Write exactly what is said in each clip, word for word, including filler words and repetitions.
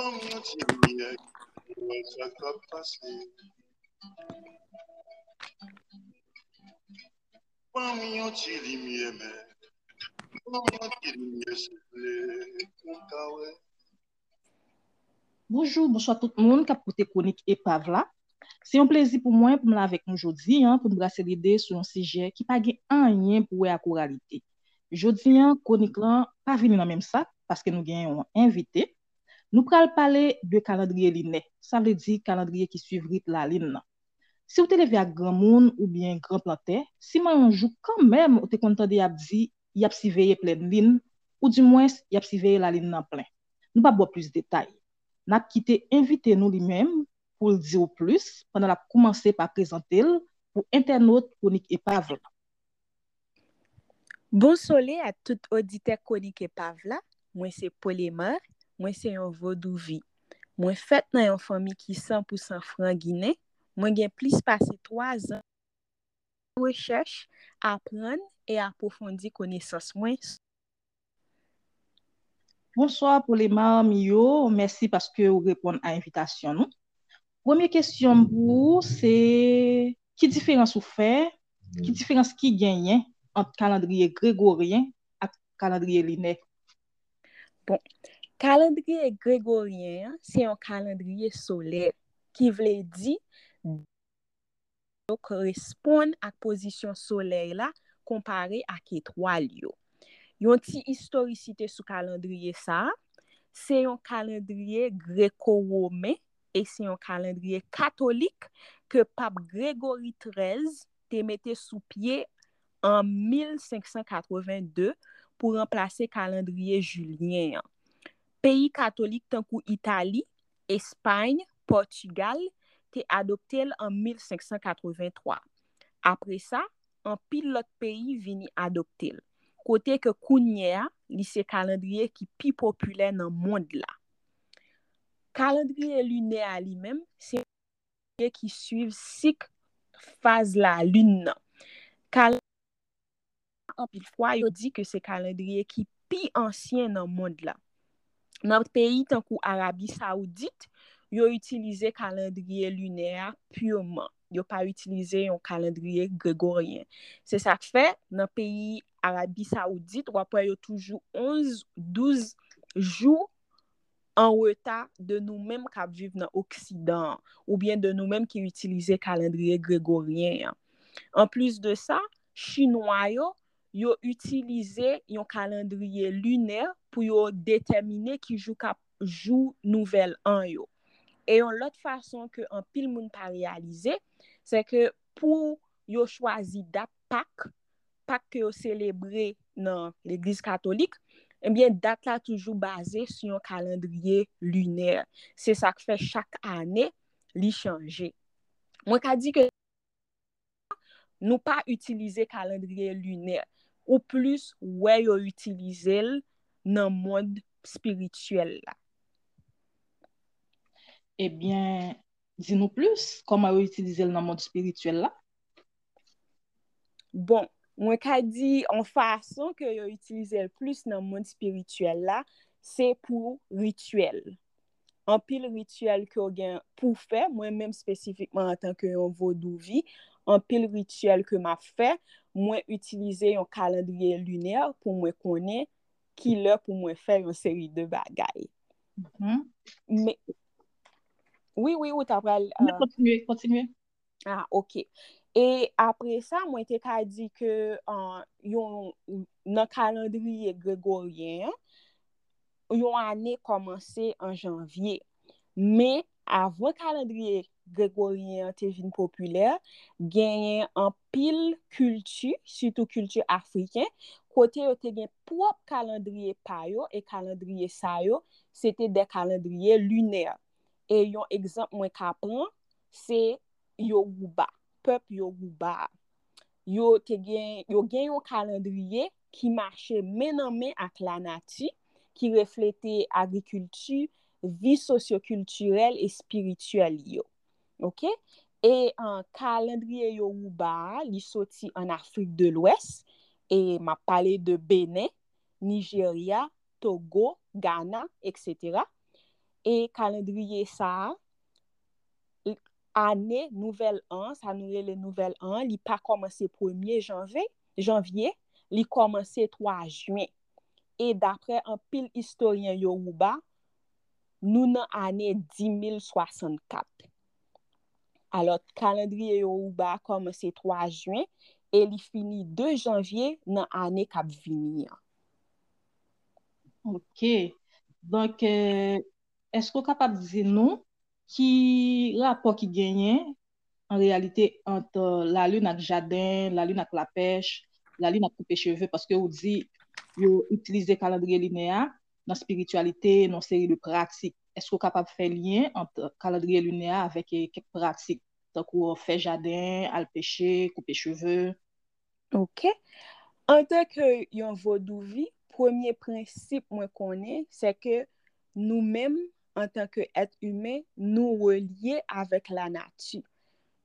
Ban m yon ti limyè, pou wè sa k ap pase. Ban m yon ti limyè, men. Ban m yon ti limyè, souple, pou m ka wè. Bonjou, bonswa tout moun k ap koute Kwonik Epav la. Se yon plezi pou mwen pou m la avèk nou jodi a, pou n brase lide sou yon sijè ki pa gen anyen pou wè ak oralite. Jodi a, kwonik lan pa vini nan menm sak, paske nou gen yon envite. Nou pral pale de kalandriye linè, sa vle di kalandriye ki swiv rit lalin nan. Si w te leve ak granmoun oubyen gran plantè, siman yon jou kanmenm ou te konn tande y ap di y ap siveye plenn lin, oudimwens y ap siveye lalin nan plen. Nou p ap ba w plis detay. N ap kite envite nou li menm pou l di w plis pandan l ap koumanse pa prezante l pou entènot Kwonik Epav la. Bonsole a tout oditè Kwonik Epav la. Mwen se Polemar, mwen se yon vodouvi. Mwen fèt nan yon fanmi ki san pou san fran ginen. Mwen gen plis pase twa zan rechèch, aprann e apwofondi konesans mwen. Bonswa Polemar Miyo, mèsi paske ou reponn a envitasyon nou. Premye kesyon m pou ou se, ki diferans ou fè, ki diferans ki genyen ant kalandriye gregoryen ak kalandriye linè? Bon, kalandriye gregoryen an se yon kalandriye solè, ki vle di yo koresponn ak pozisyon solèy la konpare ak etwal yo. Yon ti istorisite sou kalandriye sa a, se yon kalandriye greko-women e se yon kalandriye katolik ke Pap Gregori trèz te mete sou pye an mil senk san katreven de pou ranplase kalandriye jilyen an. Peyi katolik tankou Itali, Espay, Pòtigal te adopte l an mil senk san katreven twa. Apre sa, anpil lòt peyi vini adopte l, kote ke kounye a, li se kalandriye ki pi popilè nan mond la. Kalandriye linè a li menm, se ki swiv sik faz lalin nan. Kal-, anpil fwa, yo di ke se kalandriye ki pi ansyen nan mond la. Nan peyi tankou Arabi Sawoudit, yo itilize kalandriye linè a piman. Yo pa itilize yon kalandriye gregoryen. Se sa k fè, nan peyi Arabi Sawoudit, w ap wè yo toujou onz, douz jou an reta de nou menm k ap viv nan Oksidan an, oubyen de nou menm ki itilize kalandriye gregoryen an. Anplis de sa, Chinwa yo, yo itilize yon kalandriye linè pou yo detèmine ki jou k ap jou nouvèl an yo. E yon lòt fason ke anpil moun pa reyalize, se ke pou yo chwazi dat Pak, Pak ke yo selebre nan legliz katolik, ebyen, dat la toujou baze sou yon kalandriye linè. Se sa k fè chak ane, li chanje. Mwen ka di ke nou pa itilize kalandriye linè, ou plis wè yo itilize l nan mond espirityèl la. Ebyen, di nou plis, kòman yo itilize l nan mond espirityèl la? Bon, mwen ka di yon fason ke yo itilize l plis nan mond espirityèl la, se pou rityèl. Anpil rityèl ke w gen pou w fè, mwen menm espesifikman antanke yon vodouvi, anpil rityèl ke m ap fè, mwen itilize yon kalandriye linè pou mwen konnen ki lè pou mwen fè yon seri de bagay. Mhm. Men, wi, wi, ou ta pral, Men euh, kontinye, kontinye. Ah, ok. E apre sa, mwen te ka di ke, euh, yon, nan kalandriye gregoryen an, yon ane kòmanse an janvye. Men, avan kalandriye gregoryen an te vin popilè, genyen anpil kilti, sitou kilti afriken, kote yo te gen pwòp kalandriye pa yo, e kalandriye sa yo, se te de kalandriye linè. E yon egzanp mwen ka pran, se Yoruba, pèp Yoruba a. Yo te gen, yo gen yon kalandriye ki mache men nan men ak lanati, ki reflete agrikilti, vi sosyokiltirèl e espirityèl yo. Ok? E, euh, kalandriye Yoruba a, li soti an Afrik de Lwès, e m ap pale de Benen, Nijerya, Togo, Gana, et cetera. E kalandriye sa a, ane nouvèl an, sa nou rele nouvèl an, li pa kòmanse premye janvye, janvye, li kòmanse twa jen. E daprè anpil istoryen Yoruba, nou nan ane di mil swasannkat. Alò, kalandriye Yoruba a kòmanse twa jen e li fini de janvye nan ane k ap vini an. Ok. Donk, euh, èske w kapab di nou ki rapò ki genyen an reyalite ant lalin ak jaden, lalin ak lapèch, lalin ak koupe cheve, paske ou di yo itilize kalandriye linè a nan espirityalite, nan seri de pratik. Èske w kapab fè lyen ant kalandriye linè a avèk eh, kèk pratik, tankou fè jaden, al peche, koupe cheve? Ok. Antanke yon vodouvi, premye prensip mwen konnen, se ke nou menm, antanke èt imen, nou relye avèk lanati.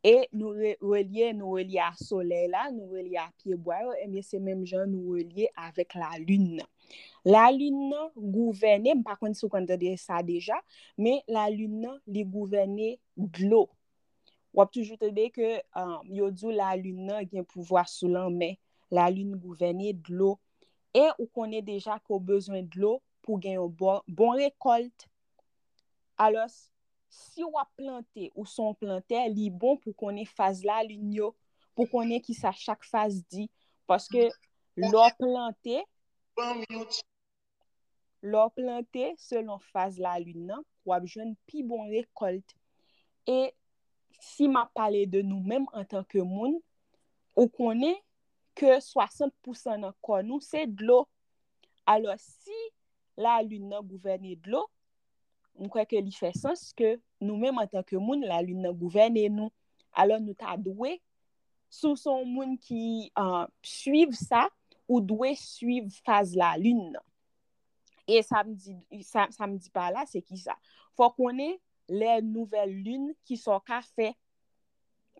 E nou re, relye, nou relye a solèy la, nou relye a pyebwa yo, ebyen se menm jan nou relye avèk lalin nan. Lalin nan gouvène, m pa konn si w konn tande sa deja, men lalin nan, li gouvène dlo. W ap toujou tande ke um, yo di w lalin nan gen pouvwa sou lanmè. Lalin gouvène dlo. E ou konnen deja ke w bezwen dlo pou gen yon bon, bon rekòlt. Alò, si w ap plante, ou se yon plantè, li bon pou konnen faz lalin yo, pou konnen kisa chak faz di. Paske lè w plante, lè w plante selon faz lalin nan, w ap jwenn pi bon rekòlt. E si m ap pale de nou menm antanke moun, ou konnen ke swasant pousan nan kò nou se dlo. Alò, si lalin nan gouvène dlo, m kwè ke li fè sans ke nou menm antanke moun, lalin nan gouvène nou. Alò, nou ta dwe, si w se yon moun ki uh, suiv sa, ou dwe suiv faz lalin nan. E sa m di, sa, sa m di pa la, se ki sa? Fò konnen lè nouvèl lin, ki sa w ka fè.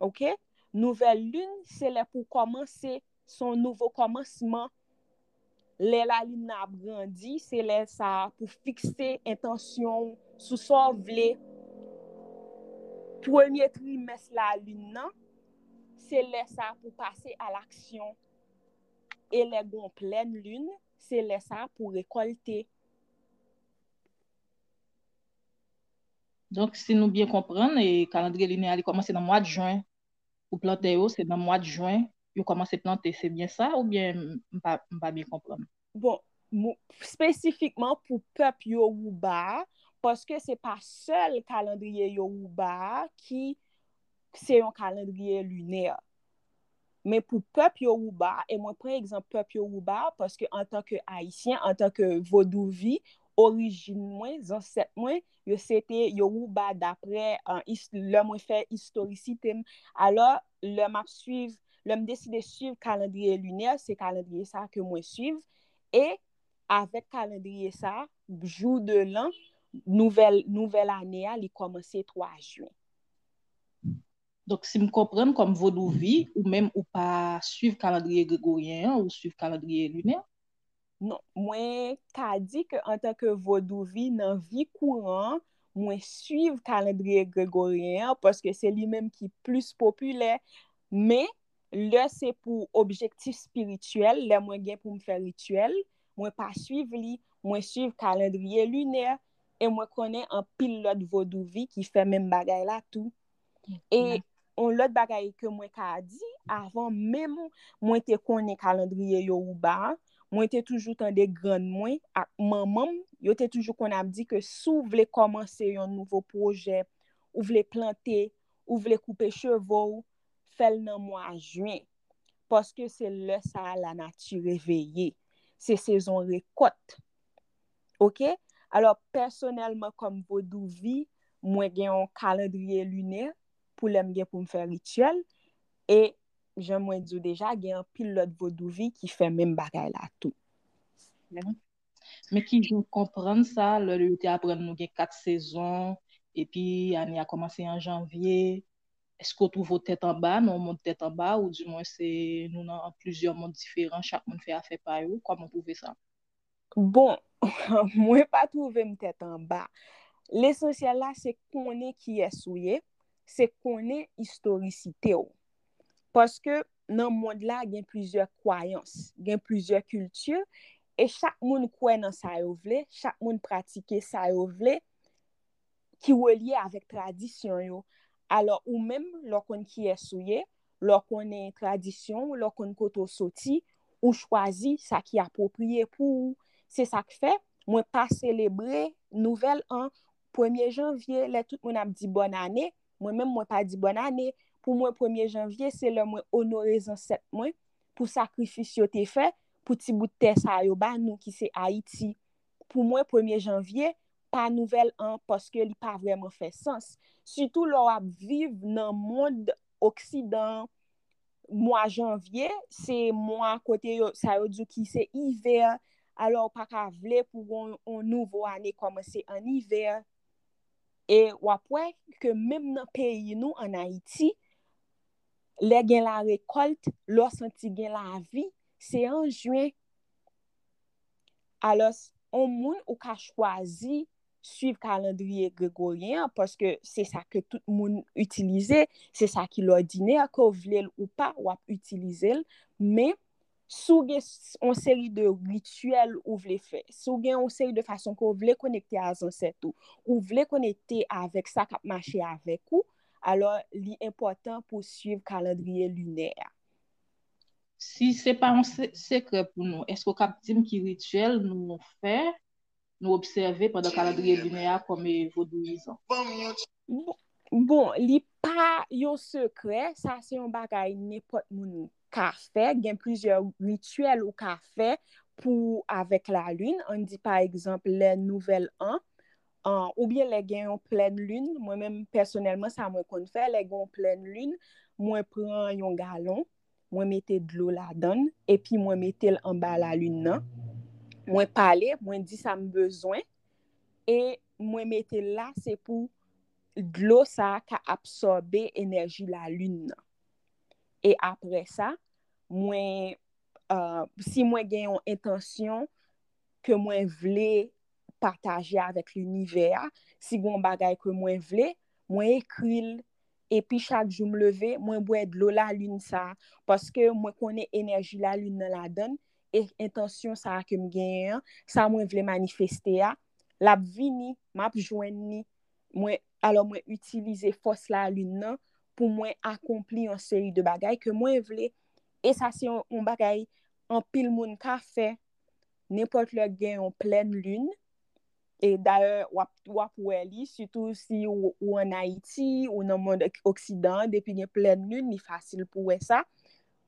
Ok? Nouvèl lin, se lè pou kòmanse, se yon nouvo kòmansman. Lè lalin nan ap grandi, se lè sa pou fikse entansyon w sou sa w vle. Premye trimès lalin nan, se lè sa pou pase a laksyon. E lè gon plèn lin, se lè sa pou rekòlte. Donk, si nou byen konprann, e kalandriye linè a li kòmanse nan mwa de jen. Pou plantè yo, se nan mwa de jen yo kòmanse plante, se byen sa oubyen m pa, m pa byen konprann? Bon, espesifikman pou pèp Yoruba a, paske se pa sèl kalandriye Yoruba a ki se yon kalandriye linè. Men pou pèp Yoruba, e mwen pran egzanp pèp Yoruba, paske antanke Ayisyen, antanke Vodouvi, orijin mwen, zansèt mwen, yo se te Yoruba daprè uh, lè mwen fè istorisite m. Alò, lè m ap swiv, lè m deside swiv kalandriye linè, se kalandriye sa ke mwen swiv. E avèk kalandriye sa, jou de lan, nouvèl, nouvèl ane a, li kòmanse twa jen. Donk, si m konprann, kòm vodouvi, ou menm ou pa swiv kalandriye gregoryen an, ou swiv kalandriye linè? Non, mwen ka di ke antanke vodouvi nan vi kouran, mwen swiv kalandriye gregoryen an paske se li menm ki plis popilè. Men, lè se pou objektif espirityèl, lè mwen gen pou m fè rityèl, mwen pa swiv li, mwen swiv kalandriye linè, e mwen konnen anpil lòt vodouvi ki fè menm bagay la tou. E yon lòt bagay ke mwen ka di, avan menm mwen te konnen kalandriye Yoruba a, mwen te toujou tande grann mwen ak manman m, yo te toujou konn ap di ke si w vle kòmanse yon nouvo pwojè, ou vle plante, ou vle koupe cheve w, fè l nan mwa jen. Paske se lè sa a lanati reveye. Se sezon rekòt. Ok? Alò, pèsonèlman, kòm vodouvi, mwen gen yon kalandriye linè pou lè m gen pou m fè rityèl. E jan mwen di w deja, gen anpil lòt vodouvi ki fè menm bagay la tou. Men ki jan w konprann sa, lè yo te aprann nou gen kat sezon, epi ane a kòmanse an janvye, èske w twouve w tèt anba nan yon mond tèt anba, oudimwen se nou nan plizyè mond diferan, chak moun fè afè pa yo? Kòman w twouve sa? Bon, mwen pa twouve m tèt anba. Lesansyèl la, se konnen kiyès ou ye, se konnen istorisite w. Paske nan mond la, gen plizyè kwayans, gen plizyè kilti, e chak moun kwè nan sa yo vle, chak moun pratike sa yo vle, ki relye avèk tradisyon yo. Alò, ou menm, lè w konn kiyès ou ye, lè w konnen tradisyon w, lè w konn kote w soti, ou chwazi sa ki apwopriye pou ou. Se sa k fè, mwen pa selebre nouvèl an premye janvye, lè tout moun ap di bòn ane, mwen menm, mwen pa di bòn ane. Pou mwen, premye janvye, se lè mwen onore zansèt mwen pou sakrifis yo te fè, pou ti bout tè sa yo ba nou ki se Ayiti. Pou mwen, premye janvye, pa nouvèl an, paske li pa vrèman fè sans. Sitou lè w ap viv nan mond oksidan, mwa janvye, se mwa kote yo, sa yo di w ki se ivè, alò w pa ka vle pou yon, yon nouvo ane kòmanse an ivè. E w ap wè ke menm nan peyi nou, an Ayiti, lè gen larekòlt, lè w santi gen lavi, se an jen. Alò, yon moun ou ka chwazi swiv kalandriye gregoryen an, paske se sa ke tout moun itilize, se sa ki lòdinè, ke w vle l ou pa, w ap itilize l, men si w gen s- yon seri de rityèl ou vle fè, si w gen yon seri de fason ke w vle konekte a zansèt ou, ou vle konekte avèk sa k ap mache avèk ou, alò li enpòtan pou w swiv kalandriye linè a. Si se pa yon se- sekrè pou nou, èske w kab di m ki rityèl nou fè, nou obsève pandan kalandriye linè a kòm e vodouyizan? Bon, bon, li pa yon sekrè, sa se yon bagay nenpòt moun ka fè, gen plizyè rityèl ou ka fè pou avèk lalin, ann di pa egzanp lè nouvèl an, an, oubyen lè gen yon plèn lin, mwen menm pèsonèlman sa mwen konn fè, lè gen yon plèn lin, mwen pran yon galon, mwen mete dlo ladan l, epi mwen mete l anba lalin nan. Mwen pale, mwen di sa m bezwen, e mwen mete l la, se pou dlo sa a ka absòbe enèji lalin nan. E apre sa, mwen, uh, si mwen gen yon entansyon ke mwen vle pataje avèk linivè a, si gen yon bagay ke mwen vle, mwen ekri l, epi chak jou m leve, mwen bwè dlo lalin sa a, paske mwen konnen enèji lalin nan ladan l, e entansyon sa a ke m genyen an, sa mwen vle manifeste a, l ap vini, m ap jwenn li, mwen, alò mwen itilize fòs lalin nan pou mwen akonpli yon seri de bagay ke mwen vle. E sa se yon, yon bagay anpil moun ka fè. Nenpòt lè gen yon plèn lin, e dayè w ap, w ap wè li, sitou si ou, ou ann Ayiti, ou nan mond oksidan an, depi gen plèn lin, li fasil pou wè sa.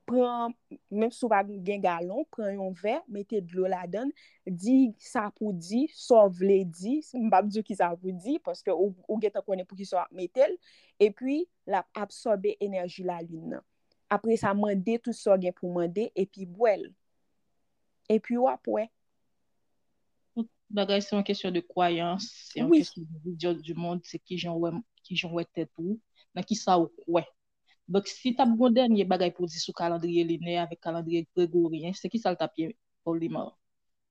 Pran, menm si w pa gen galon, pran yon vè, mete dlo ladan l, di sa pou di, sa w vle di, m p ap di w ki sa pou di, paske ou, ou gentan konnen pou ki sa w ap mete l, epi l ap absòbe enèji lalin nan. Apre sa, mande tout sa w gen pou mande, epi bwè l. Epi w ap wè. Tout bagay se yon kesyon de kwayans, se yon Wi. Kesyon de vizyon du monde, se kijan w wè, kijan w wè tèt ou, nan ki sa ou kwè. Donk, si t ap gen yon dènye bagay pou w di sou kalandriye linè avèk kalandriye gregoryen, se ki sa l t ap ye, Olimar?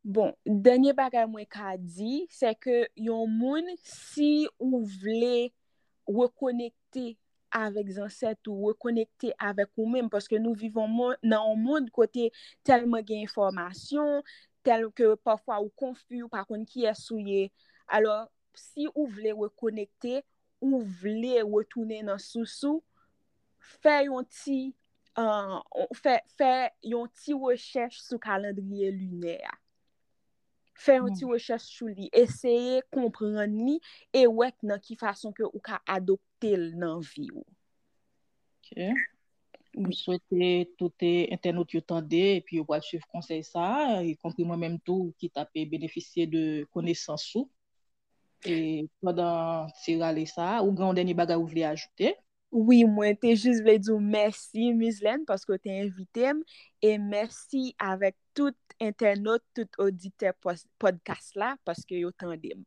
Bon, dènye bagay mwen ka di, se ke yon moun, si ou vle rekonekte avèk zansèt ou, rekonekte avèk ou menm, paske nou viv yon mon- nan yon mond kote tèlman gen enfòmasyon, tèl ke pafwa ou konfi, ou pa konn kiyès ou ye. Alò, si ou vle rekonekte, ou vle retounen nan sous ou, fè yon ti, uh, fè, fè yon ti rechèch sou kalandriye linè a. Fè yon ti rechèch sou li, eseye konprann li e wè nan ki fason ke ou ka adopte l nan vi w. Ok. M swete tout entènot yo tande epi yo pral swiv konsèy sa a, ikonpri mwen menm tou ki t ap benefisye de konesans ou. E pandan ti rale sa a, ou gen yon dènye bagay ou vle ajoute? Wi, mwen te jis vle di w mèsi, Mizlèn, paske w te envite m, e mèsi avèk tout entènot, tout oditè pòs- pòdkas la, paske yo tande m.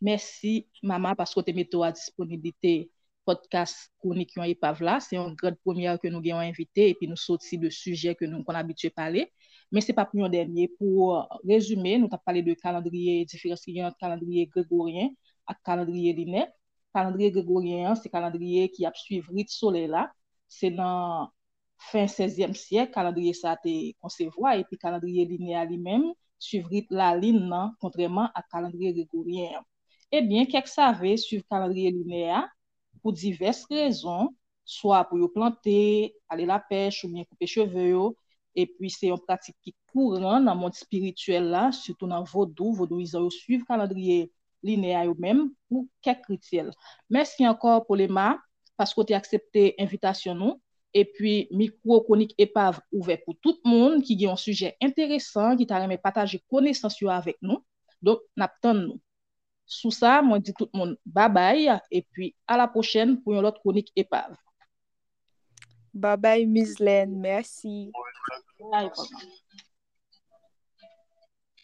Mèsi, Mama, paske w te mete w a disponiblite pòdkas Kwonik yon epav la. Se yon gran premyè ke nou gen yon envite, epi nou soti de sijè ke nou konn abitye pale. Men se pa pou yon dènye. Pou rezime, nou t ap pale de kalandriye, diferans ki gen ant kalandriye gregoryen ak kalandriye linè. Kalandriye gregoryen an, se kalandriye ki ap swiv rit solèy la. Se nan fen sèzyèm syèk, kalandriye sa a te konsevwa, epi kalandriye linè a li menm swiv rit lalin nan, kontrèman ak kalandriye gregoryen an. Ebyen, kèk save swiv kalandriye linè a pou divès rezon, swa pou yo plante, ale lapèch oubyen koupe cheve yo. Epi se yon pratik ki kouran nan mond espirityèl la, sitou nan vodou. Vodouyizan yo swiv kalandriye linè a yo menm pou kèk rityèl. Mèsi ankò, Polema, paske w te aksepte envitasyon nou. Epi mikwo Kwonik Epav ouvè pou tout moun ki gen yon sijè enteresan, ki ta renmen pataje konesans yo avèk nou. Donk, n ap tann nou. Sou sa, mwen di tout moun babay, epi a la pwochèn pou yon lòt Kwonik Epav. Babay, Mizlèn, mèsi. Babay, Polema.